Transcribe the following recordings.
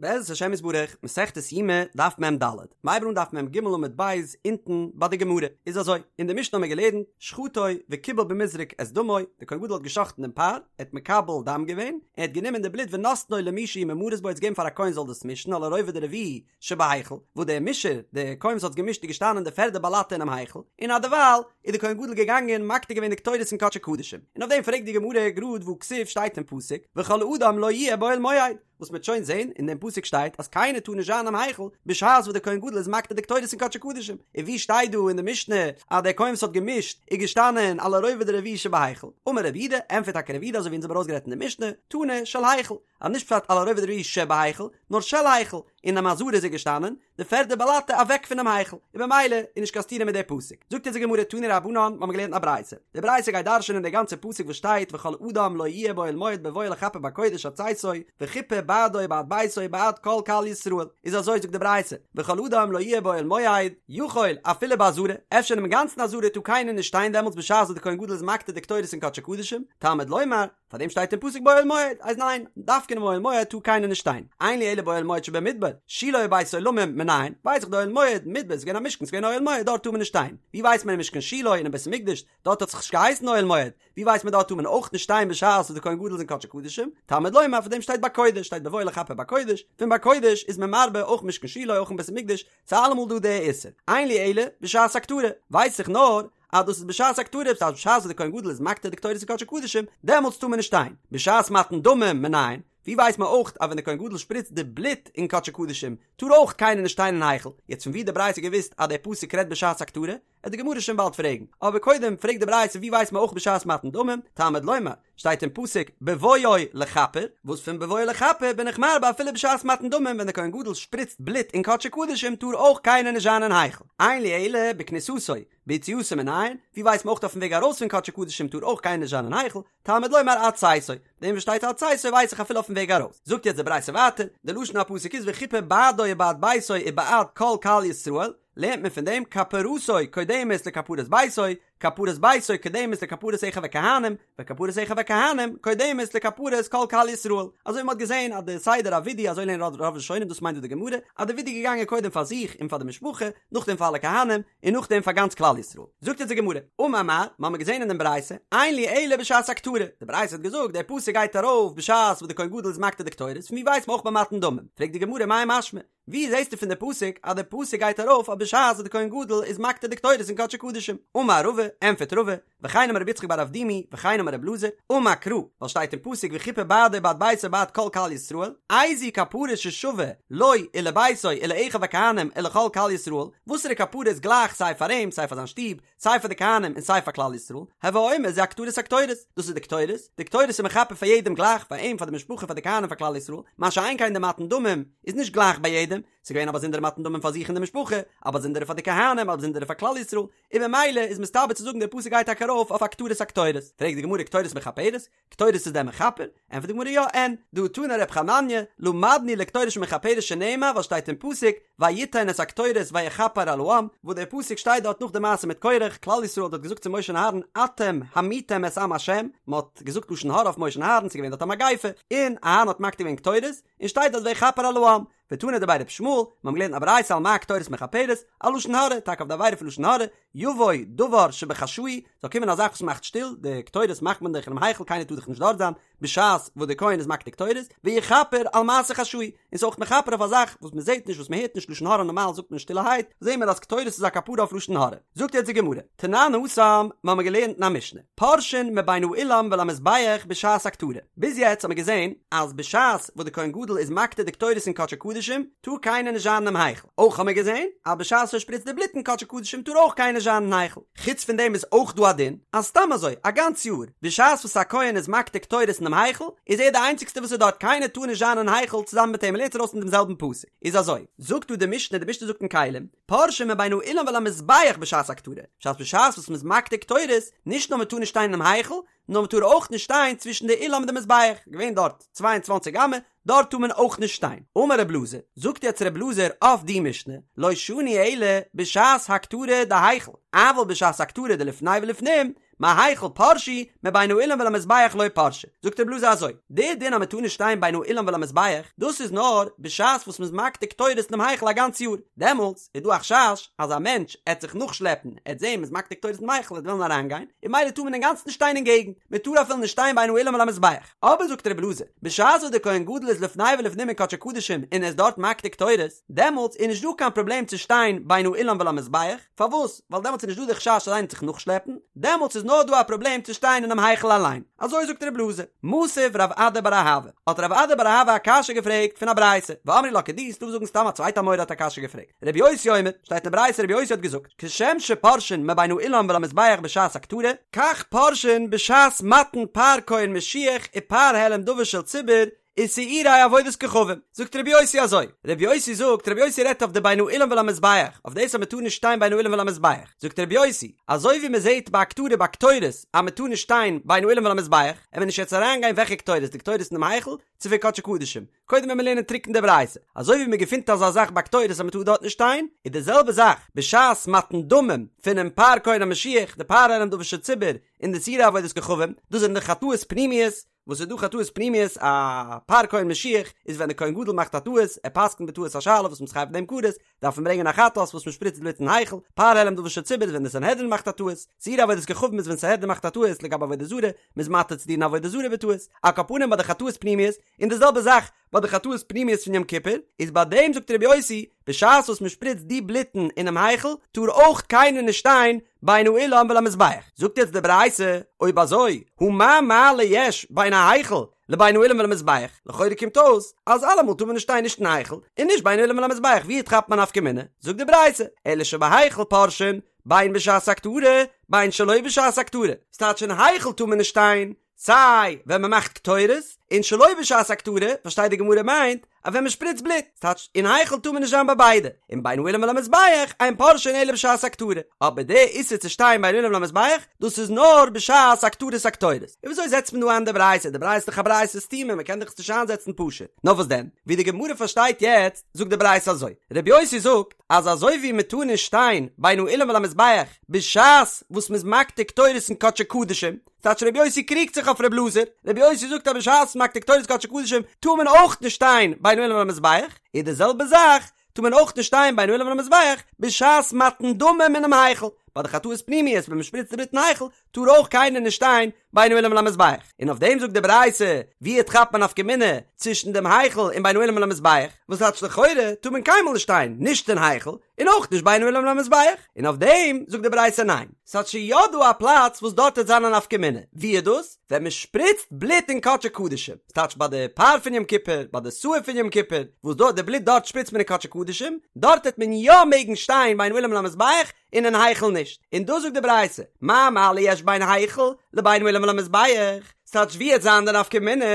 בעזרת השם יתברך, מסכת יומא, דף מ ד, מ'הייבט אן דף מ ג עמוד ב', אונטן ביי די גמרא, איז אזוי, אין די משנה האמיר געלערנט, שחטו וקיבל במזרק את דמו, דער כהן גדול האט גע'שחט'ן דעם פר, ער האט מקבל דם געווען, ער האט גענומען די בלוט ונתנו למי שהוא ממרס בו, ער האט עס געגעבן פאר א כהן זאל דאס מישן, על הרובד הרביעי שבהיכל, וואו דער מישער, דער כהן וואס האט געמישט איז געשטאנען אין די פערדע באלאטע אינעם היכל, און אדערווייל איז דער כהן גדול געגאנגען מקטיר געווען די קטורת אין קדשי קדשים, און אויף דעם פרעגט די גמרא גראד והכתיב שטייט אין פסוק, וכל אדם לא יהיה באוהל מועד, וואס מ'וועט שוין זען, אין דעם פסוק שטייט אז קיינער טאר נישט זיין אינעם היכל בשעת וואס דער כהן גדול איז מקטיר די קטורת אין קדשי קדשים, און ווי שטייט דא אין די משנה אז דער כהן וואס האט געמישט איז געשטאנען על הרובד הרביעי שבהיכל? אמר רב יהודה, ענטפערט טאקע רב יהודה אזוי ווי אונז האבן ארויסגערעדט אין די משנה, תנא של היכל, אז נישט פשט על הרובד הרביעי שבהיכל, נאר של היכל, אינעם עזרה איז ער געשטאנען, די פערדע באלאטע אוועק פונעם היכל, און במילא איז נישט קיין סתירה מיט די פסוק. זאגט אונז די גמרא תנו רבנן, מ'האמיר געלערנט א ברייתא. די ברייתא גייט דרש'ענען די גאנצע פסוק וואס שטייט וכל אדם לא יהיה באוהל מועד בבואו לכפר בקודש עד צאתו, וכיפר בעדו ובעד ביתו ובעד כל קהל ישראל. איז אזוי זאגט די ברייתא, וכל אדם לא יהיה באוהל מועד, יכול אפילו בעזרה, אפשר אינעם גאנצן עזרה טאר קיינער נישט שטיין דעמאלטס בשעת וואס די כהן גדול איז מקטיר די קטורת אין קדשי קדשים, תלמוד לומר, פאר דעם שטייט אין פסוק באוהל מועד, אז ניין, דווקא אינעם אוהל מועד טאר קיינער נישט שטיין, אין לי אלא באוהל מועד שבמדבר, שילה ובית עולמים מנין, ווייס איך די אוהל מועד, מדבר איז געווען א משכן, ס'איז געווען אוהל מועד, דארט טאר מען נישט שטיין, ווי ווייסט מען אין משכן שילה און אין בית המקדש, דארט האט זיך נישט געהייסן אוהל מועד, ווי ווייסט מען דארט טאר מען אויך נישט שטיין בשעת וואס די כהן גדול איז אין קדשי קדשים, תלמוד לומר פאר דעם שטייט בקודש, שטייט בבואו לכפר בקודש, פון בקודש איז מען מרבה אויך משכן שילה אויך אין בית המקדש, ס'איז אלעמאל דא די איסור, אין לי אלא בשעת הקטרה, ווייס איך נאר אז דאס איז בשעת הקטרה, דאס הייסט בשעת וואס דער כהן גדול איז מקטיר די קטורת אין קדשי קדשים, דעמאלטס טאר מען נישט שטיין. בשעת מתן דמים מנין, ווי ווייסט מען אויך אז ווען דער כהן גדול שפריצט די בלוט אין קדשי קדשים, טאר אויך קיינער נישט שטיין אין היכל. יעצט פון ווי האט די ברייתא געוואוסט אז דער פסוק רעדט בשעת הקטרה? וועט די גמרא שוין באלד פרעגן. אבער קודם פרעגט די ברייתא ווי ווייסט מען אויך בשעת מתן דמים, תלמוד לומר, שטייט אין פסוק בבואו לכפר, וואס פון בבואו לכפר בין איך מרבה אפילו בשעת מתן דמים ווען דער כהן גדול שפריצט בלוט אין קדשי קדשים טאר אויך קיינער נישט זיין אין היכל. אין לי אלא בכניסתו, ביציאתו מנין, ווי ווייסט מען אויך אויפן וועג ארויס פון קדשי קדשים טאר אויך קיינער נישט זיין אין היכל, תלמוד לומר עד צאתו, דעם וואס שטייט עד צאתו ווייס איך אפילו אויפן וועג ארויס. זאגט יעצט די ברייתא ווייטער, די לשון הפסוק איז וכיפר בעדו ובעד ביתו ובעד כל קהל ישראל, לערנט מען פון דעם כפרתו קודמת לכפרת ביתו, כפרת ביתו קודמת לכפרת אחיו הכהנים, וכפרת אחיו הכהנים קודמת לכפרת כל קהל ישראל. אזוי ווי מען האט געזען אז די סדר הווידוי אזוי לערנען רוב ראשונים דאס מיינט דא די גמרא, אז די ווידוי איז געגאנגען קודם פאר זיך און פאר די משפחה, נאכדעם פאר אלע כהנים, און נאכדעם פאר גאנץ כלל ישראל. זאגט אונז די גמרא, אמר מר, מ'האמיר געזען אין דעם ברייתא, אין לי אלא בשעת הקטרה, די ברייתא האט געזאגט דער פסוק גייט ארויף בשעת וואס די כהן גדול איז מקטיר די קטורת, פון ווי ווייסט מען אויך ביי מתן דמים? פרעגט די גמרא מאי משמע, ווי זעסטו פון די פסוק אז די פסוק גייט ארויף אויף בשעת וואס די כהן גדול איז מקטיר די קטורת אין קדשי קדשים? אמר רבא, ענטפערט רבא, וכן אמר רבי יצחק בר אבדימי, וכן אמר רבי אלעזר, אמר קרא, ווייל שטייט אין פסוק וכיפר בעדו ובעד ביתו ובעד כל קהל ישראל, איזו כפרה ששווה לו ולביתו ולאחיו הכהנים ולכל קהל ישראל, וואסערע כפרה איז גלייך סיי פאר אים סיי פאר זיין שטוב, סיי פאר די כהנים און סיי פאר כלל ישראל, הוי אומר זו הקטרת הקטורת, דאס איז די קטורת, די קטורת איז מכפר פאר יעדעם גלייך, פאר אים, פאר די משפחה, פאר די כהנים, פאר כלל ישראל, מה שאין כן די מתן דמים איז נישט גלייך ביי יעדעם, ס'איז געווען א באזונדערע מתן דמים פאר זיך און די משפחה, א באזונדערע פאר די כהנים, א באזונדערע פאר כלל ישראל, און במילא איז מסתבר צו זאגן דער פסוק גייט טאקע ארויף אויף הקטרת הקטורת. פרעגט די גמרא קטורת מכפרת? קטורת איז דען מכפר? ענטפערט די גמרא יא, אין, דהא תנא ר' חנניה, למדנו לקטורת שמכפרת שנאמר ווייל שטייט אין פסוק ויתן את הקטורת ויכפר על העם, וואס דער פסוק שטייט דארט נאך די מעשה מיט קורח, כלל ישראל האט דארט געזאגט צו משה און אהרן אתם המיתם את עם השם, מען האט געזאגט לשון הרע אויף משה און אהרן, ס'איז געווען דארט א מגיפה, און אהרן האט מקטיר געווען קטורת, און שטייט דארט ויכפר על העם, ותנא דבי ר' ישמעאל, מיר האבן געלערנט א ברייתא על מה הקטורת מכפרת, על לשון הרע, טאקע אויף די עבירה פון לשון הרע, יבוא דבר שבחשאי, זאל קומען א זאך וואס מאכט שטיל, די קטורת מאכט מען דאך אינעם היכל קיינער טאר דאך נישט דארט זיין, בשעת וואס דער כהן איז מקטיר קטורת, ויכפר על מעשה חשאי, און ס'איז אויך מכפר אויף א זאך וואס מען זעט נישט וואס מען הערט נישט לשון הרע נארמאל זאגט מען שטילערהייט, זעהן מיר אז קטורת איז א כפרה אויף לשון הרע. זאגט יעצט די גמרא, תנן התם, מיר האבן געלערנט אין א משנה, פורשין מבין האולם ולמזבח בשעת הקטרה, ביז יעצט האבן מיר געזען אז בשעת וואס די כהן גדול איז מקטיר די קטורת אין קדשי קדשים טאר קיינער נישט זיין אינעם היכל, אויך האבן מיר געזען אז בשעת ער שפריצט די בלוט אין קדשי קדשים טאר אויך קיינער נישט זיין אין היכל, חוץ פון דעם איז אויך דא א דין אז סתם אזוי א גאנץ יאר בשעת וואס א כהן איז מקטיר קטורת אינעם היכל איז ער די איינציגסטע וואס איז דארט קיינער טאר נישט זיין אין היכל צוזאמען מיט אים מ'לערנט ארויס פון דעם זעלבן פסוק איז אזוי זאגט דא די משנה די משנה זאגט אין כלים פורשין מבין האולם ולמזבח בשעת הקטרה, בשעת בשעת וואס מ'איז מקטיר קטורת, נישט נאר מ'טאר נישט שטיין אינעם היכל, נאר מ'טאר אויך נישט שטיין צווישן די אולם און די מזבח, געווען דארט צוויי און צוואַנציק אמה, דארט טאר מען אויך נישט שטיין. אמר רב אלעזר, זאגט יעצט רב אלעזר אויף די משנה, לא שנו אלא בשעת הקטרה דהיכל, אבל בשעת הקטרה דלפני ולפנים, מהיכל פרשו, מבין האולם ולמזבח לא פרשי. זאגט רבי אלעזר אזוי, די דין אז מען טאר נישט שטיין בין האולם ולמזבח, דאס איז נאר בשעת וואס מען איז מקטיר קטורת אינעם היכל א גאנץ יאר, דעמאלטס איז דא א חשש אז א מענטש עט זיך נאכשלעפן, עט זען מען איז מקטיר קטורת אינעם היכל עט וועלן אריינגיין, און ממילא טאר מען אינגאנצן נישט שטיין אין געגנט, מען טאר אפילו נישט שטיין בין האולם ולמזבח. אבער זאגט רבי אלעזר, בשעת וואס דער כהן גדול איז לפני ולפנים אין קדשי קדשים און ער איז דארט מקטיר קטורת, דעמאלטס איז נישט דא קיין פראבלעם צו שטיין בין האולם ולמזבח, פארוואס? ווייל דעמאלטס איז נישט דא די חשש אז איינער וועט זיך נאכשלעפן, דעמאלטס איז נאר דא א פראבלעם צו שטיין אינעם היכל אליין. אזוי זאגט רבי אלעזר. מתיב רב אדא בר אהבה, האט רב אדא בר אהבה א קשיא געפרעגט פון א ברייתא, ואמרי לה כדי, ס'דא וואס זאגן סתם א צווייטע אמורא האט א קשיא געפרעגט. רבי יוסי אומר, שטייט אין ברייתא רבי יוסי האט געזאגט, כשם שפורשין מבין האולם ולמזבח בשעת הקטרה, כך פורשין בשעת מתן פר כהן משיח ופר העלם דבר של ציבור ושעירי עבודת כוכבים. זאגט רבי יוסי אזוי, רבי יוסי זאגט, רבי יוסי רעדט אויף די בין האולם ולמזבח, אויף דאס אז מען טאר נישט שטיין בין האולם ולמזבח, זאגט רבי יוסי, אזוי ווי מען זעט ביי הקטרה ביי קטורת אז מען טאר נישט שטיין בין האולם ולמזבח, עמיר נישט יעצט אריינגיין וועלכע קטורת, די קטורת אינעם היכל, צו פון קדשי קדשים, קודם ווען מיר לערנען טרוקן די ברייתא, אזוי ווי מען געפינט אזא זאך ביי קטורת אז מען טאר דארט נישט שטיין, איז די זעלבע זאך בשעת מתן דמים פונעם פר כהן המשיח, די פר העלם דבר של ציבור, און די שעירי עבודת כוכבים, דאס זענען די חטאות פנימיות, וואס איז דא חטאות פנימיות, א פר כהן משיח איז ווען די כהן גדול מאכט א טעות, ער פסק'נט בטעות א שאלה וואס מ'איז חייב אין דעם כרת, דארף מען ברענגען א חטאת וואס מען שפריצט בלוט אין היכל, פר העלם דבר של ציבור איז ווען די סנהדרין מאכט א טעות, שעירי עבודת כוכבים איז ווען סנהדרין מאכט א טעות לגבי עבודה זרה, מ'איז מתיר צו דינען עבודה זרה בטעות, על כל פנים ביי די חטאות פנימיות, און די זעלבע זאך ביי די חטאות פנימיות פון יום כיפור, איז ביי דעם זאגט רבי יוסי, בשעת וואס מען שפריצט די בלוטן אינעם היכל, טאר אויך קיינער נישט שטיין בין האולם ולמזבח. זאגט יעצט די ברייתא, אויב אזוי, הא מה מעלה יש בין ההיכל לבין האולם ולמזבח, לכאורה קומט אויס אז אלעמאל טאר מען נישט שטיין נישט אין היכל און נישט בין האולם ולמזבח, ווי כאפט מען א נפקא מינה? זאגט די ברייתא, אלא שבהיכל פורשין בין בשעת הקטרה בין שלא בשעת הקטרה, ס'טייטש אין היכל טאר מען נישט שטיין סיי ווען מען מאכט קטורת, און שלא בשעת הקטרה, פארשטייט די גמרא מיינט אז ווען מען שפריצט בלוט, ס'טייטש אין היכל טאר מען נישט זיין ביי ביידע, און בין האולם ולמזבח אין פורשין אלא בשעת הקטרה, אבער די איסור צו שטיין בין האולם ולמזבח דאס איז נאר בשעת הקטרת הקטורת. און וויאזוי זעצט מען דא איין די ברייתא? די ברייתא איז דאך א ברייתא סתומה, מען קען דאך עס נישט איינזעצן פשוט. נאר וואס דען? ווי די גמרא פארשטייט יעצט, זאגט די ברייתא אזוי, רבי יוסי זאגט אז אזוי ווי מען טאר נישט שטיין בין האולם ולמזבח בשעת וואס מען איז מקטיר קטורת אין קדשי קדשים, ס'טייטש רבי יוסי קריגט זיך אויף רבי אלעזר, רבי יוסי זאגט אז בשעת מקטיר קטורת קדשי קדשים טאר מען אויך נישט שטיין בין האולם ולמזבח, איז די זעלבע זאך טאר מען אויך נישט שטיין בין האולם ולמזבח בשעת מתן דמים אינעם היכל, ביי די חטאות פנימיות ווען מען שפריצט די בלוט אין היכל טאר אויך קיינער נישט שטיין בין האולם ולמזבח, און אויף דעם זאגט די ברייתא ווי כאפט מען א נפקא מינה צווישן דעם היכל און בין האולם ולמזבח, וואס טייטש לכאורה טאר מען קיינמאל נישט שטיין נישט אין היכל און אויך נישט בין האולם ולמזבח, און אויף דעם זאגט די ברייתא ניין, ס'האט שוין יא דא א פלאץ וואס דארט וועט זיין א נפקא מינה, ווי איז דאס? ווען מען שפריצט בלוט אין קדשי קדשים, ס'טייטש ביי די פר פון יום כיפור, ביי די שעיר פון יום כיפור, וואס דארט די בלוט דארט שפריצט מען אין קדשי קדשים, דארט וועט מען יא מעגן שטיין בין האולם ולמזבח, און אין היכל נישט, און דאס זאגט די ברייתא, מה מעלה יש בין היכל לבין האולם ולמזבח, ס'טייטש ווי וועט זיין די נפקא מינה,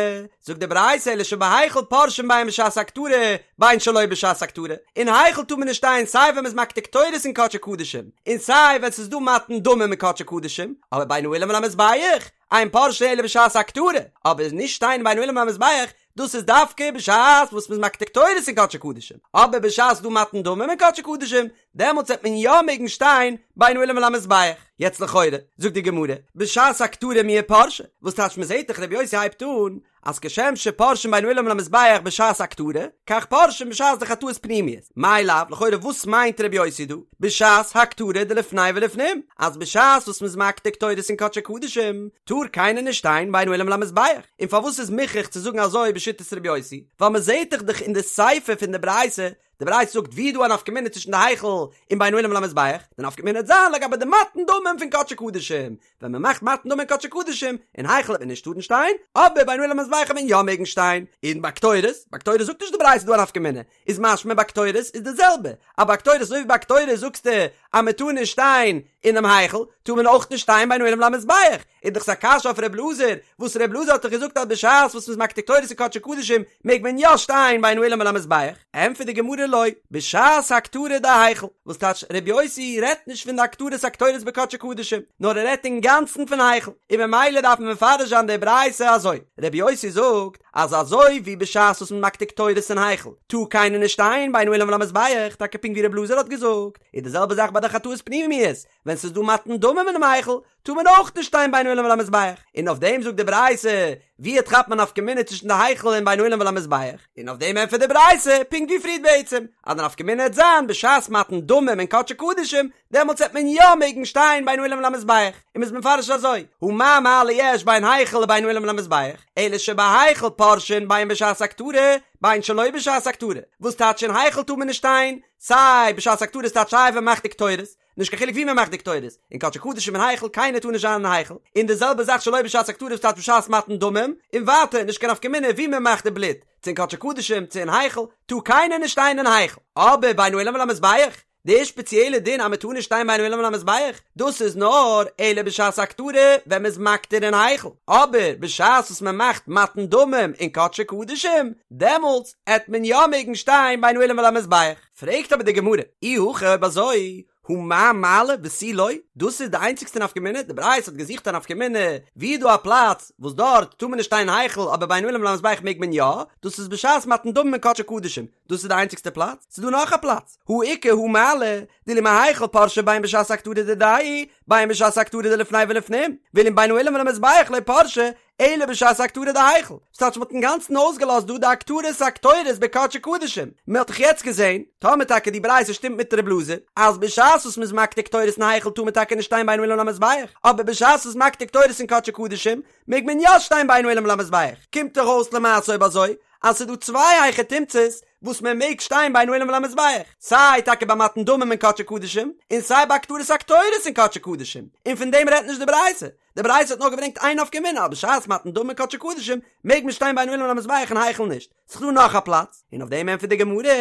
זאגט די ברייתא אלא שבהיכל פורשין בין בשעת הקטרה בין שלא בשעת הקטרה, אין היכל טאר מען נישט שטיין סיי ווען מ'איז מקטיר קטורת אין קדשי קדשים, און סיי ווען ס'איז דא מתן דמים אין קדשי קדשים, אבער בין האולם ולמזבח אין פורשין אלא בשעת הקטרה, אבער נישט שטיין בין האולם ולמזבח דאס איז דווקא בשעת וואס מ'איז מקטיר קטורת אין קדשי קדשים, אבער בשעת ס'דא מתן דמים אין קדשי קדשים, דעמאלטס וועט מען יא מעגן שטיין בין האולם ולמזבח. יעצט לכאורה, זאגט די גמרא, בשעת הקטרה מיהא פרשי, וואס טייטש מ'זעט דאך רבי יוסי הייבט אן אז כשם שפורשין בין האולם ולמזבח בשעת הקטרה, כך פורשין בשעת די חטאות פנימיות, מאי לאו, לכאורה וואס מיינט רבי יוסי דא, בשעת הקטרה דלפני ולפנים, אז בשעת וואס מ'איז מקטיר קטורת אין קדשי קדשים, טאר קיינער נישט שטיין בין האולם ולמזבח, און פארוואס איז מוכרח צו זאגן אזוי בשיטת רבי יוסי, ווייל מ'זעט דאך דאך אין די סיפא פון די ברייתא, די ברייתא זאגט ווי איז דא א נפקא מינה צווישן די היכל און בין האולם ולמזבח, די נפקא מינה וועט זיין לגבי די מתן דמים פון קדשי קדשים, ווען מען מאכט מתן דמים אין קדשי קדשים, אין היכל וועט מען נישט טארן שטיין, אבער בין האולם ולמזבח וועט מען יא מעגן שטיין, און ביי קטורת, ביי קטורת זאגט נישט די ברייתא דא א נפקא מינה, איז משמע ביי קטורת איז די זעלבע, אז ביי קטורת אזוי ווי ביי קטורת זאגסטו אז מען טאר נישט שטיין אינעם היכל, טאר מען אויך נישט שטיין בין האולם ולמזבח, איז דאך עס א קשיא אויף ר' אלעזר, וואס ר' אלעזר האט דאך געזאגט אז בשעת וואס מ'איז מקטיר קטורת אין קדשי קדשים מעג מען יא שטיין בין האולם ולמזבח, ענטפערט די גמרא לא, בשעת הקטרה דהיכל, וואס טייטש ר' יוסי רעדט נישט פון די הקטרת הקטורת בקדשי קדשים, נאר ער רעדט אינגאנצן פון היכל, און ממילא דארף מען מפרש זיין די ברייתא אזוי, ר' יוסי זאגט אז אזוי ווי בשעת וואס מ'איז מקטיר קטורת אין היכל טאר קיינער נישט שטיין בין האולם ולמזבח, טאקע פונקט ווי ר' אלעזר האט געזאגט, איז די זעלבע זאך ביי די חטאות פנימיות, ווען ס'איז דא מתן דמים אינעם היכל, טאר מען אויך נישט שטיין בין האולם ולמזבח, און אויף דעם זאגט די ברייתא, ווי טרעפט מען א נפקא מינה צווישן די היכל און בין האולם ולמזבח, און אויף דעם ענטפערט די ברייתא, פונקט ווי פריערט בעצם, אז די נפקא מינה העט זיין בשעת מתן דמים אין קדשי קדשים, דעמאלטס העט מען יא מעגן שטיין בין האולם ולמזבח, און מ'איז מפרש אזוי, הא מה מעלה יש בין היכל לבין האולם ולמזבח, אלא שבהיכל פורשין בין בשעת הקטרה, בין שלא בשעת הקטרה, וואס טייטש אין היכל טאר מען נישט שטיין, סיי בשעת הקטרה ס'טייטש סיי ווען מ'מאכט די קטורת, נישט קיין חילוק ווי מען מאכט די קטורת, אין קדשי קדשים אין היכל, קיינער טאר נישט זיין אין היכל, און די זעלבע זאך שלא בשעת הקטרה וואס טייטש בשעת מתן דמים, און ווייטער נישט קיין נפקא מינה ווי מען מאכט די בלוט, צו אין קדשי קדשים צו אין היכל, טאר קיינער נישט שטיין אין היכל. אבער בין האולם ולמזבח, די שפעציעלע דין אז מען טאר נישט שטיין בין האולם ולמזבח, דאס איז נאר אלא בשעת הקטרה ווען מען איז מקטיר אין היכל, אבער בשעת וואס מען מאכט מתן דמים אין קדשי קדשים, דעמאלטס עט מען יא מעגן שטיין בין האולם ולמזבח. פרעגט אבער די גמרא, אי הכי אויב אזוי, הא מה מעלה ותו לא, דאס איז די איינציגסטע נפקא מינה, די ברייתא האט געזוכט א נפקא מינה, ווי איז דא א פלאץ וואס דארט טאר מען נישט שטיין אין היכל אבער בין האולם ולמזבח מעג מען יא, דאס איז בשעת מתן דמים אין קדשי קדשים, דאס איז די איינציגסטע פלאץ? ס'איז דא נאך א פלאץ, הא איכא הא מעלה, דאילו מהיכל פרשי בין בשעת הקטרה דידיה, בין בשעת הקטרה דלפני ולפנים, ואילו מבין האולם ולמזבח לא פרשי, אלא בשעת הקטרה דהיכל, ס'טייטש מ'האט אינגאנצן אויסגעלאזט דא די הקטרת הקטורת בקדשי קדשים, מ'האט דאך יעצט געזען, טאמער טאקע די ברייתא שטימט מיט ר' אלעזר, אז בשעת וואס מ'איז מקטיר קטורת אין היכל טאר מען טאקע נישט שטיין בין האולם למזבח, אבער בשעת וואס מקטיר קטורת אין קדשי קדשים מעג מען יא שטיין בין האולם למזבח, קומט דאך אויס למעשה אויב אזוי אז ס'איז דא צוויי היכי תמצא'ס וואס מען מעג שטיין בין האולם ולמזבח, סיי טאקע ביי מתן דמים אין קדשי קדשים, און סיי ביי הקטרת הקטורת אין קדשי קדשים, און פון דעם רעדט נישט די ברייתא, די ברייתא האט נאר געברענגט איין נפקא מינה אז בשעת מתן דמים אין קדשי קדשים מעג מען שטיין בין האולם ולמזבח אין היכל נישט, ס'איז דא נאך א פלאץ, און אויף דעם ענטפערט די גמרא,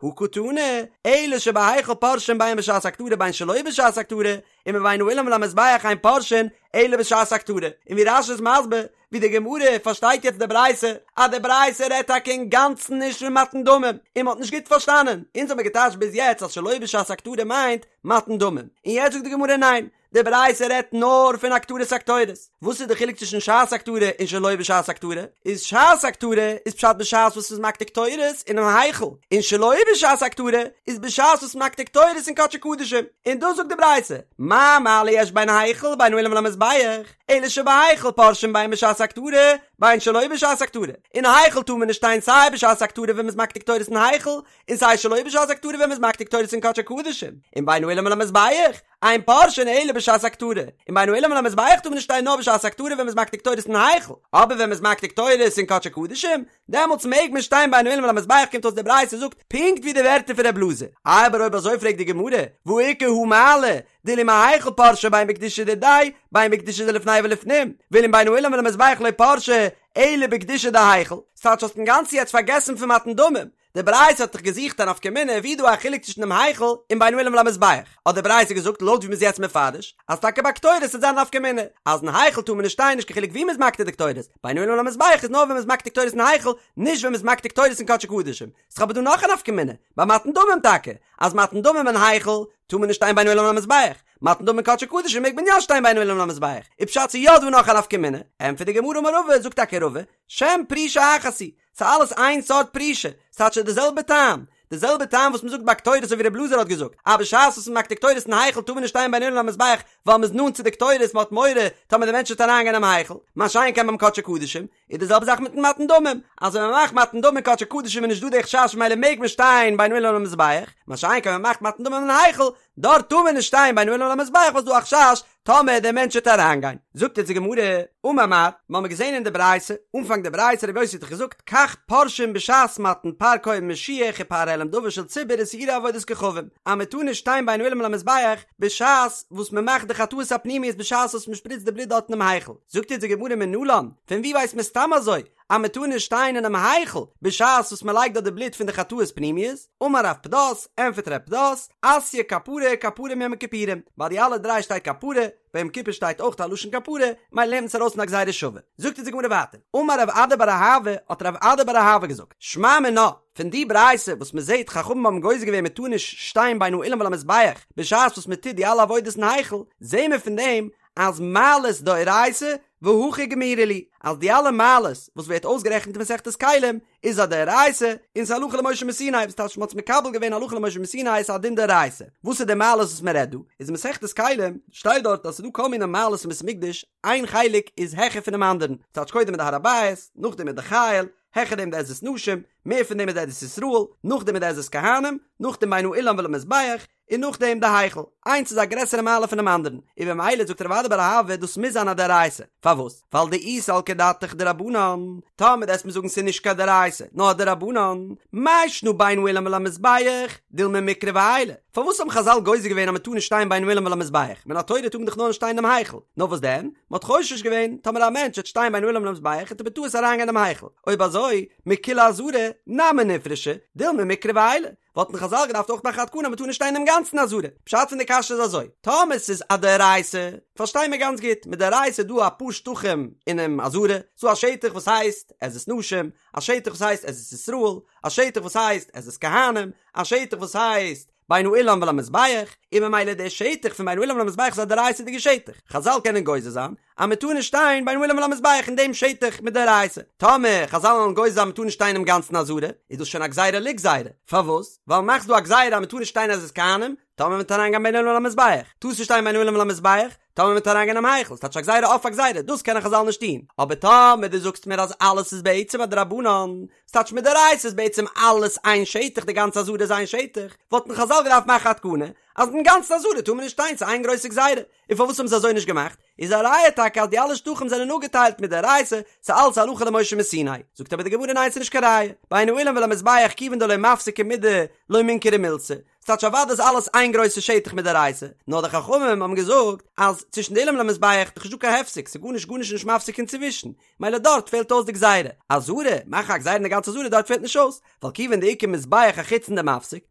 הא קתני, אלא שבהיכל פורשין בין בשעת הקטרה בין שלא בשעת הקטרה, ומבין האולם ולמזבח אין פורשין אלא בשעת הקטרה, און ווי רש"י איז מסביר, ווי די גמרא פארשטייט יעצט די ברייתא, אז די ברייתא רעדט טאקע אינגאנצן נישט פון מתן דמים, און מ'האט נישט גוט פארשטאנען, אונז האמיר געטייטשט ביז יעצט אז שלא בשעת הקטרה מיינט מתן דמים, און יעצט זאגט די גמרא ניין, די ברייתא רעדט נאר פון הקטרת הקטורת. וואס איז די חילוק צווישן שעת הקטרה און שלא בשעת הקטרה? איז שעת הקטרה איז פשט בשעת וואס מ'איז מקטיר קטורת אינעם היכל, און שלא בשעת הקטרה איז בשעת וואס מקטיר קטורת אין קדשי קדשים. און דאס זאגט די ברייתא, מה מעלה יש בין היכל ובין האולם ולמזבח, אלא שבהיכל פורשין בין בשעת הקטרה בין שלא בשעת הקטרה. אין היכל טאר מען נישט שטיין סיי בשעת הקטרה ווען מ'איז מקטיר קטורת אין היכל, און סיי שלא בשעת הקטרה ווען מ'איז מקטיר קטורת אין קדשי קדשים. און בין האולם ולמזבח, אין פורשין אלא בשעת הקטרה, און בין האולם ולמזבח טאר מען נישט שטיין נאר בשעת הקטרה ווען מ'איז מקטיר קטורת אין היכל, אבער ווען מ'איז מקטיר קטורת אין קדשי קדשים, דעמאלטס מעג מען שטיין בין האולם ולמזבח קומט אויס די ברייתא זאגט פונקט ווי די ווערטער פון ר' אלעזר, אבער אויב אזוי פרעגט די גמרא, והא איכא הא מעלה, דאילו מהיכל פרשי בין בקדושה דידיה, בין בקדושה דלפני ולפנים, ואילו מבין האולם ולמזבח לא פרשי, אלא בקדושה דהיכל, ס'טייטש האסט אינגאנצן יעצט פארגעסן פון מתן דמים, די ברייתא האט דאך געזוכט א נפקא מינה ווי איז דא א חילוק צווישן דעם היכל און בין האולם ולמזבח, האט די ברייתא געזאגט לויט ווי מ'איז יעצט מפרש, אז טאקע ביי קטורת וועט זיין א נפקא מינה, אז אין היכל טאר מען נישט שטיין נישט קיין חילוק ווי מ'איז מקטיר די קטורת, בין האולם ולמזבח איז נאר ווען מ'איז מקטיר קטורת אין היכל, נישט ווען מ'איז מקטיר קטורת אין קדשי קדשים. ס'איז אבער דא נאך א נפקא מינה, ביי מתן דמים טאקע, אז מתן דמים אין היכל טאר מען נישט שטיין בין האולם ולמזבח, מתן דמים אין קדשי קדשים מעג מען יא שטיין בין האולם ולמזבח, איז פשט ס'איז יא דא נאך א נפקא מינה, ענטפערט די גמרא אמר רבא, זאגט טאקע רבא, שם פרישה אחת היא, ס'איז אלעס איין סארט פרישה, ס'האט שוין די זעלבע טעם, די זעלבע טעם וואס מ'זאגט ביי קטורת אזוי ווי ר' אלעזר האט געזאגט, אז בשעת וואס מ'מאכט די קטורת אין היכל טאר מען נישט שטיין בין האולם ולמזבח ווייל מ'איז נאנט צו די קטורת מ'האט מורא טאמער די מענטש וועט אריינגיין אינעם היכל, מה שאין כן ביים קדשי קדשים, איז די זעלבע זאך מיטן מתן דמים, אז ווען מ'מאכט מתן דמים אין קדשי קדשים איז נישט דא די חשש ממילא מעג מען שטיין בין האולם ולמזבח, מה שאין כן ווען מ'מאכט מתן דמים אין היכל, דארט טאר מען נישט שטיין בין האולם ולמזבח ווייל ס'איז דא א חשש טאמער דער מענטש וועט אריינגיין. זאגט אונז די גמרא, אמר מר, מ'האמיר געזען אין די ברייתא, אנפאנג די ברייתא רבי יוסי האט דאך געזאגט, כך פורשין בשעת מתן פר כהן משיח ופר העלם דבר של ציבור ושעירי עבודת כוכבים, אז מען טאר נישט שטיין בין האולם ולמזבח בשעת וואס מען מאכט די חטאות הפנימיות בשעת וואס מען שפריצט די בלוט דארט אינעם היכל. זאגט אונז די גמרא מנלן, פון וואו ווייסט מען סתם אזוי אז מען טאר נישט שטיין אינעם היכל בשעת וואס מען לייגט דארט די בלוט פון די חטאות פנימיות? אמר רב פדת, ענטפערט רב פדת, אתיא כפרה כפרה מיום הכיפורים, ביי די אלע דריי שטייט כפרה, ביי יום כיפור שטייט אויך א לשון כפרה, ממילא לערנט מען עס ארויס אין א גזירה שווה. זאגט אונז די גמרא ווייטער, אמר רב אדא בר אהבה, האט רב אדא בר אהבה געזאגט, שמע מינה, פון די ברייתא וואס מען זעט חכמים האבן גוזר געווען מען טאר נישט שטיין בין האולם ולמזבח בשעת וואס מען טוט די אלע עבודות אין היכל, זעהן מיר פון דעם. אז מעלות דאורייתא והכי גמירי להו, אז די אלע מעלות וואס ווערט אויסגערעכנט אין מסכת כלים איז א דאורייתא און ס'איז הלכה למשה מסיני, וואס טייטש מ'האט עס מקבל געווען הלכה למשה מסיני איז א דין דאורייתא. וואס איז די מעלות וואס מ'רעדט דא? איז אין מסכת כלים שטייט דארט אז ס'איז דא כל מיני מעלות אין בית המקדש, איין חלק איז העכער פונעם אנדערן, ס'טייטש קודם איז די הר הבית, נאכדעם איז די חיל, העכער דעם די עזרת נשים, מער פון דעם איז די עזרת ישראל, נאכדעם איז די עזרת כהנים, נאכדעם בין האולם ולמזבח, און נאכדעם די היכל, איינס איז א גרעסערע מעלה פונעם אנדערן, און במילא זאגט רב אדא בר אהבה דאס מוז זיין א דאורייתא, פארוואס? ווייל דאי סלקא דעתך דרבנן, טאמער דו וועסט מיר זאגן ס'איז נישט קיין דאורייתא, נאר א דרבנן, מאי שנא בין האולם ולמזבח, דילמא מיקרב עיילי, פארוואס האבן חזל גוזר געווען אז מ'טאר נישט שטיין בין האולם ולמזבח, מן התורה טאר מען דאך נאר נישט שטיין אינעם היכל, נאר וואס דען? מ'האט חושש געווען, טאמער א מענטש וועט שטיין בין האולם ולמזבח וועט ער בטעות אריינגיין אינעם היכל, אויב אזוי, מכולה עזרה, נמי נפרשו, דילמא מיקרב עיילי, וואלטן חזל געדארפט אויך מאכן א תקנה אז מ'טאר נישט שטיין אינעם גאנצן עזרה. פשט פון די קשיא איז אזוי, טאמער ס'איז א דאורייתא, פארשטיי מיר גאנץ גוט, מדאורייתא איז דא אפאר שטחים אינעם עזרה, ס'דא א שטח וואס הייסט עזרת נשים, א שטח וואס הייסט עזרת ישראל, א שטח וואס הייסט עזרת כהנים, א שטח וואס הייסט בין האולם ולמזבח, און ממילא דער שטח פון בין האולם ולמזבח איז א דאורייתא'דיגע שטח, חזל קענען גוזר זיין אז מען טאר נישט שטיין בין האולם ולמזבח אין דעם שטח מדאורייתא, טאמער חזל וועלן גוזר זיין מען טאר נישט שטיין אינעם גאנצן עזרה, איז דאס שוין א גזירה לגזירה, פארוואס? ווייל מאכסט דא א גזירה אז מען טאר נישט שטיין עזרת כהנים, טאמער מען וועט אריינגיין בין האולם ולמזבח, טארסט נישט שטיין בין האולם ולמזבח, טאמער מען וועט אריינגיין אינעם היכל, ס'טייטש א גזירה אויף א גזירה, דאס קענען חזל נישט טון, אבער טאמער דו זאגסט מיר אז אלעס איז בעצם א דרבנן, ס'טייטש מדאורייתא איז בעצם אלעס איין שטח, די גאנצע עזרה איז איין שטח, וואלטן חזל געדארפט מאכן א תקנה אז אין גאנצן עזרה טאר מען נישט שטיין, ס'איז איין גרויסע גזירה, און פארוואס האבן זיי אזוי נישט געמאכט? איז א ראיה טאקע אז די אלע שטחים זענען אפגעטיילט מדאורייתא, ס'איז אלץ הלכה למשה מסיני. זאגט אבער די גמרא ניין ס'איז נישט קיין ראיה, בין האולם ולמזבח כיוון דלא מפסקא מידי לא מינכרא מילתא, ס'טייטש אוודאי איז אלעס איין גרויסע שטח מדאורייתא, נאר די חכמים האבן געזאגט אז צווישן די אולם ולמזבח איז דאך נישטא קיין הפסק, ס'איז גארנישט גארנישט נישט מפסיק אינצווישן, מילא דארט פעלט אויס די גזירה. עזרה, מאכן א גזירה אין די גאנצע עזרה דארט פעלט נישט אויס, ווייל כיוון דאיכא מזבח החיצון דמפסיק,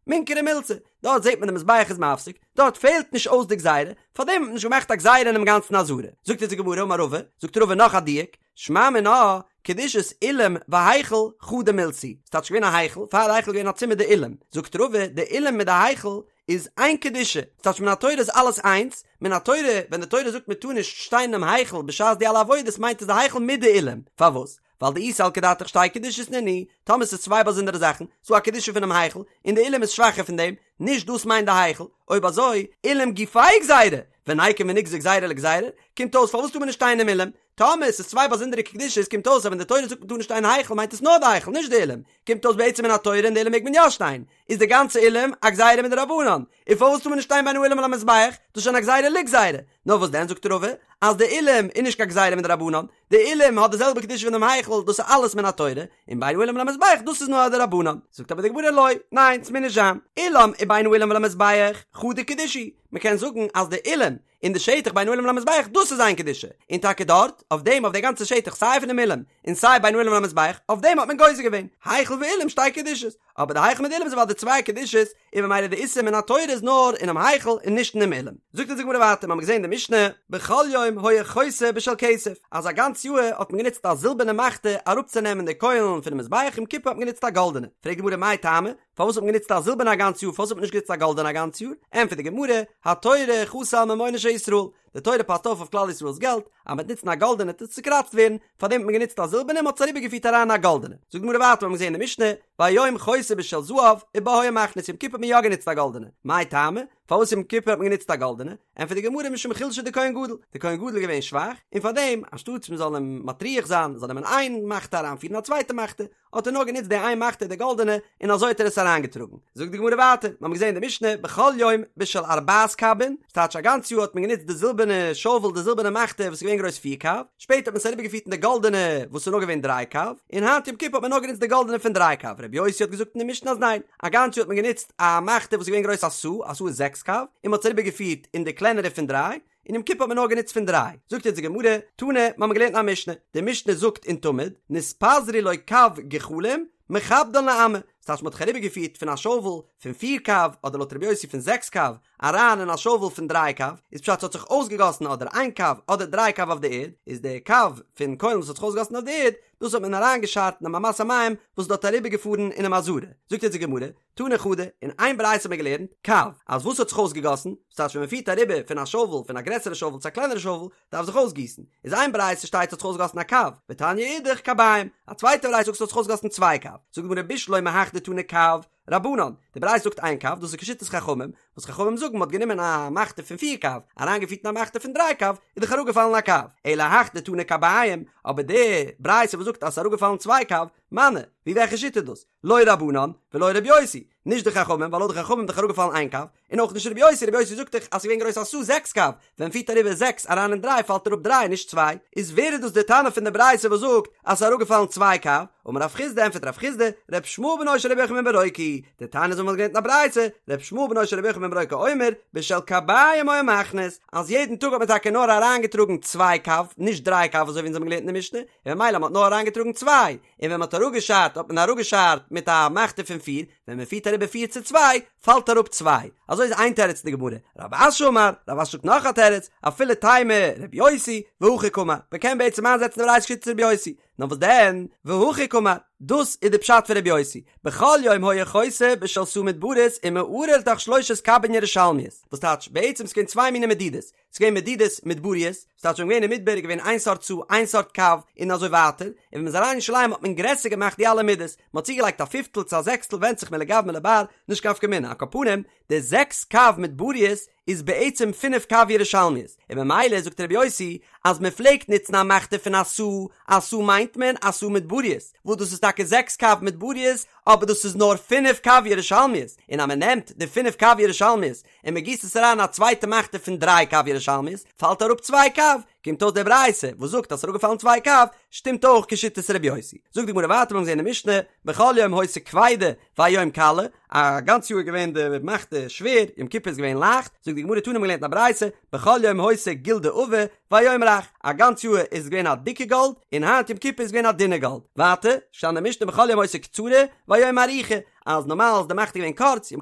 מינכרא מילתא, דארט זעט מען די מזבח איז מפסיק, דארט פעלט נישט אויס די גזירה, פארדעם האט מען נישט געמאכט א גזירה אינעם גאנצן עזרה. זאגט אונז די גמרא אמר רבא, זאגט רבא נאך א דיוק, שמע מינה, קדושת אולם והיכל חדא מילתא היא, ס'טייטש געווען א היכל, פאר די היכל איז געווען א צימער די אולם, זאגט רבא, די אולם מיט די היכל איז איין קדושה, ס'טייטש מן התורה איז אלעס איינס, מן התורה ווען די תורה זאגט מען טאר נישט שטיין אינעם היכל בשעת די אלע עבודות מיינט עס די היכל מיט די אולם, פארוואס? ווייל דאי סלקא דעתך שתי קדושות נינהו, טאמער ס'איז צוויי באזונדערע זאכן, ס'דא א קדושה פונעם היכל, און די אולם איז שוואכער פון דעם, נישט דאס מיינט די היכל, אויב אזוי, אולם גופיה גזירה, וניקום ונגזור גזירה לגזירה, קומט אויס פארוואס טאר מען נישט שטיין אינעם אולם? טאמער ס'איז צוויי באזונדערע קדושות קומט אויס אז ווען די תורה זאגט מ'טאר נישט שטיין אין היכל מיינט עס נאר די היכל נישט די אולם, קומט אויס בעצם מן התורה אין די אולם מעג מען יא שטיין, איז די גאנצע אולם א גזירה מדרבנן, און פארוואס טאר מען נישט שטיין בין האולם ולמזבח, דאס איז שוין א גזירה לגזירה, נאר וואס דען זאגט רבא אז די אולם איז נישט קיין גזירה מדרבנן, די אולם האט די זעלבע קדושה פון דעם היכל דאס איז אלעס מן התורה, און בין האולם ולמזבח דאס איז נאר א דרבנן, זאגט אבער די גמרא לא, ניין ס'מוז נישט זיין, אולם ובין האולם ולמזבח חדא קדושה היא, מ'קען זאגן אז די אולם און די שטח בין האולם ולמזבח דאס איז איין קדושה, און טאקע דארט, אויף דעם אויף די גאנצע שטח סיי פונעם אולם און סיי בין האולם ולמזבח, אויף דעם האט מען גוזר געווען, היכל ואולם שתי קדושות, אבער די היכל מיט די אולם איז אוודאי צוויי קדושות, און ממילא די איסור מן התורה איז נאר אינעם היכל און נישט אינעם אולם. זאגט אונז די גמרא ווייטער, מ'האמיר געזען אין די משנה, בכל יום היה חותה בשל כסף, אז א גאנץ יאהר האט מען גענוצט א זילבערנע מחתה אראפצונעמען די קוילן פונעם מזבח יום כיפור האט מען גענוצט א גאלדענע, פרעגט די גמרא מאי טעמא, פארוואס האט מען גענוצט א זילבערנע א גאנץ יאר פארוואס האט מען נישט גענוצט א גאלדענע א גאנץ יאר? ענטפערט די גמרא, התורה חסה על ממונו של ישראל, די תורה פאסט אויף אויף כלל ישראל'ס געלט, אז מ'וועט נוצן א גאלדענע וועט עס צוקראצט ווערן, פארדעם האט מען גענוצט א זילבערנע און מ'האט עס אריבערגעפירט אריין אין א גאלדענע. זאגט די גמרא ווייטער, מ'האט געזען אין די משנה, והיום חותה בשל זהב, ובה היה מכניס, יום כיפור האט מען יא גענוצט א גאלדענע, מאי טעמא? פארוואס יום כיפור האט מען גענוצט א גאלדענע? ענטפערט די גמרא משום חולשא דכהן גדול, די כהן גדול איז געווען שוואך, און פארדעם, אנשטאטס מ'זאל אים מטריח זיין, זאל נעמען איין מחתה אריינפירן א צווייטע מחתה, האט ער נאר גענוצט די איין מחתה די גאלדענע און אזוי האט ער עס אריינגעטראגן. זאגט די גמרא ווייטער, מיר האבן געזען אין די משנה בכל יום בשל ארבעת קבין, ס'טייטש א גאנץ יאר האט מען גענוצט די זילבערנע שאוועל די זילבערנע מחתה וואס איז געווען גרויס פיר קב, שפעטער האט מען עס אריבערגעפירט אין די גאלדענע וואס איז נאר געווען דריי קב, און היינט יום כיפור האט מען נאר גענוצט די גאלדענע פון דריי קב, רבי יוסי האט געזאגט אין די משנה אז ניין, א גאנץ יאר האט מען גענוצט א מחתה וואס איז געווען גרויס א סאה, א סאה איז זעקס קב, און מען האט עס אריבערגעפירט אין די קלענערע פון דריי, און יום כיפור האט מען נאר גענוצט פון דריי. זאגט יעצט די גמרא, תנא, מיר האבן געלערנט אין א משנה, די משנה זאגט אין תמיד, נתפזרו לו קב גחלים, מכבדן לאמה, ס'טייטש מ'האט זיך אריבערגעפירט פון א שאוול פון פיר קב, אדער לויט רבי יוסי פון זעקס קב, אריין אין א שובל פון דריי קב, איז פשט ס'האט זיך אויסגעגאסן אדער איין קב אדער דריי קב אויף די ערד, איז די קב פון קוילן וואס האט זיך אויסגעגאסן אויף די ערד, דאס האט מען אריינגעשארט אינעם אמת המים וואס איז דארט אריבערגעפארן אינעם עזרה. זאגט אונז די גמרא, תני חדא, אין איין ברייתא האט מען געלערנט, קב, אז וואס האט זיך אויסגעגאסן, ס'טייטש ווען מ'פירט אריבער פון א שובל פון א גרעסערע שובל צו א קלענערע שובל, דארף זיך אויסגיסן, איז איין ברייתא שטייט ס'האט זיך אויסגעגאסן א קב, ותניא אידך קביים, א צווייטע ברייתא זאגט ס'האט זיך אויסגעגאסן צוויי קב, זאגט די גמרא בשלמא הך דתני קב, רבנן, די ברייתא זאגט איין קב, דאס איז כשיטת חכמים, וואס חכמים זאגן מ'האט גענומען א מחתה פון פיר קב, אריינגעפירט אין א מחתה פון דריי קב, איז דאך אראפגעפאלן א קב, אלא הך דתני קביים, אבער די ברייתא וואס זאגט אז ס'איז אראפגעפאלן צוויי קב, מני, ווי וועלכע שיטה איז דאס? לא רבנן, ולא רבי יוסי, נישט די חכמים, ווייל לויט די חכמים איז דאך אראפגעפאלן איין קב, און אויך נישט רבי יוסי, רבי יוסי זאגט דאך אז ס'איז געווען גרויס א סאה זעקס קב, ווען מ'פירט אריבער זעקס אריין אין דריי פאלט אראפ דריי נישט צוויי, איז ווער איז דאס די תנא פון די ברייתא וואס זאגט אז ס'איז אראפגעפאלן צוויי קב? אמר רב חסדא ענטפערט רב חסדא, ר' ישמעאל בנו של רבי יוחנן בן ברוקה היא, דתניא אזוי ווי מ'האט געלערנט אין א ברייתא, ר' ישמעאל בנו של רבי יוחנן בן ברוקה אומר, בשל קביים היה מכניס, אז יעדן טאג האט מען טאקע נאר אריינגעטראגן צוויי קב, נישט דריי קב אזוי ווי אונז האבן געלערנט אין די משנה, און ממילא מ'האט נאר אריינגעטראגן צוויי, און ווען מ'האט אראפגעשארט האט מען אראפגעשארט מיט א מחתה פון פיר, ווען מ'פירט אריבער פיר צו צוויי, פאלט אראפ צוויי. אזוי איז איין תירוץ אין די גמרא. רב אשי אמר, רב אשי זאגט נאך א תירוץ, אפילו תימא רבי יוסי, והכי קאמר, מ'קען בעצם איינזעצן די ברייתא כשיטת רבי יוסי. נאר וואס דען, והכי קאמר, דאס איז די פשט פון רבי יוסי, בכל יום היה חותה בשל סאה מדברית ומערה לתוך שלושת קבין ירושלמיות, וואס טייטש, בעצם ס'געווען צוויי מיני מדידות, ס'איז געווען מדידות מדבריות, ס'טייטש ווען מ'איז געווען אין מדבר איז געווען איין סארט סאה, איין סארט קב, און אזוי ווייטער, און ווען מ'איז אריין אין ירושלים האט מען גרעסער געמאכט די אלע מידות, מ'האט צוגעלייגט א פיפטל צו א זעקסטל ווענדט זיך מלגאו מלבר, נישט קיין נפקא מינה, על כל פנים, די זעקס קב מדבריות איז בעצם פינף קב ירושלמיות, און ממילא זאגט רבי יוסי אז מען פלעגט נוצן א מחתה פון א סאה, א סאה מיינט מען א סאה מדבריות, וואס דאס איז טאקע זעקס קב מדבריות, אבער דאס איז נאר פינף קב ירושלמיות, און אז מען נעמט די פינף קב ירושלמיות און מען גיסט עס אריין אין א צווייטע מחתה פון דריי קב ירושלמיות, פאלט אראפ צוויי קב, קומט אויס די ברייתא וואס זאגט אז ס'איז אראפגעפאלן צוויי קב, שטימט אויך כשיטת רבי יוסי. זאגט די גמרא ווייטער מיר האבן געזען אין משנה, בכל יום היתה כבידה והיום קלה, א גאנץ יאר איז געווען די מחתה שווער, יום כיפור איז געווען לייכט, זאגט די גמרא תנא מ'האט געלערנט אין א ברייתא, בכל יום היתה גולדה עבה והיום רך, א גאנץ יאר איז געווען א דיקע גאלד, און היינט יום כיפור איז געווען א דינע גאלד. ווייטער, שטייט אין די משנה בכל יום היתה קצרה והיום ארוכה, אז נארמאל איז די מחתה געווען קורץ, יום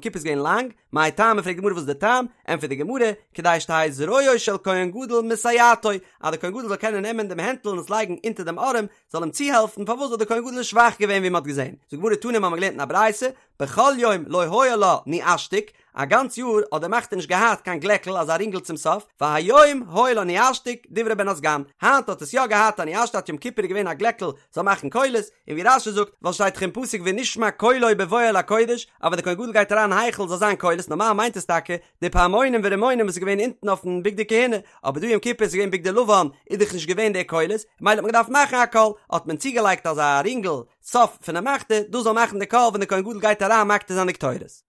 כיפור איז געווען לאנג, מאי טעמא פרעגט די גמרא וואס איז די טעם, ענטפערט די גמרא, כדי שתהא זרועו של כהן גדול מסייעתו, אז דער כהן גדול זאל קענען נעמען דעם הענטל און עס לייגן אונטער דעם ארעם, זאל אים צוהעלפן, פארוואס ווייל דער כהן גדול איז שוואך געווען ווי מען האט געזען, זאגט די גמרא תנא מיר האבן געלערנט אין א ברייתא, בכל יום לא היה לה ניאשתיק, א גאנץ יאר האט די מחתה נישט געהאט קיין גלעקל אזא רינגל צום סוף, והיום היה לה ניאשתיק, דברי בן הסגן, היינט האט עס יא געהאט א ניאשתיק יום כיפור איז געווען א גלעקל זאל מאכן קולות, און ווי רש"י זאגט, ווייל שטייט דאך אין פסוק ונשמע קולו בבואו אל הקודש, אז ווען דער כהן גדול גייט אריין אין היכל זאל זיין קולות, נארמאל מיינט עס טאקע די פעמונים ורימונים וואס איז געווען אונטן אויפן בגדי כהונה, אבער דא יום כיפור איז געווען בגדי לבן איז דאך נישט געווען די קולות, ממילא האט מען געדארפט מאכן א קול, האט מען צוגעלייגט אזא רינגל סוף פונעם מחתה, דאס זאל מאכן די קול ווען דער כהן גדול גייט אריין מקטיר זיין די קטורת.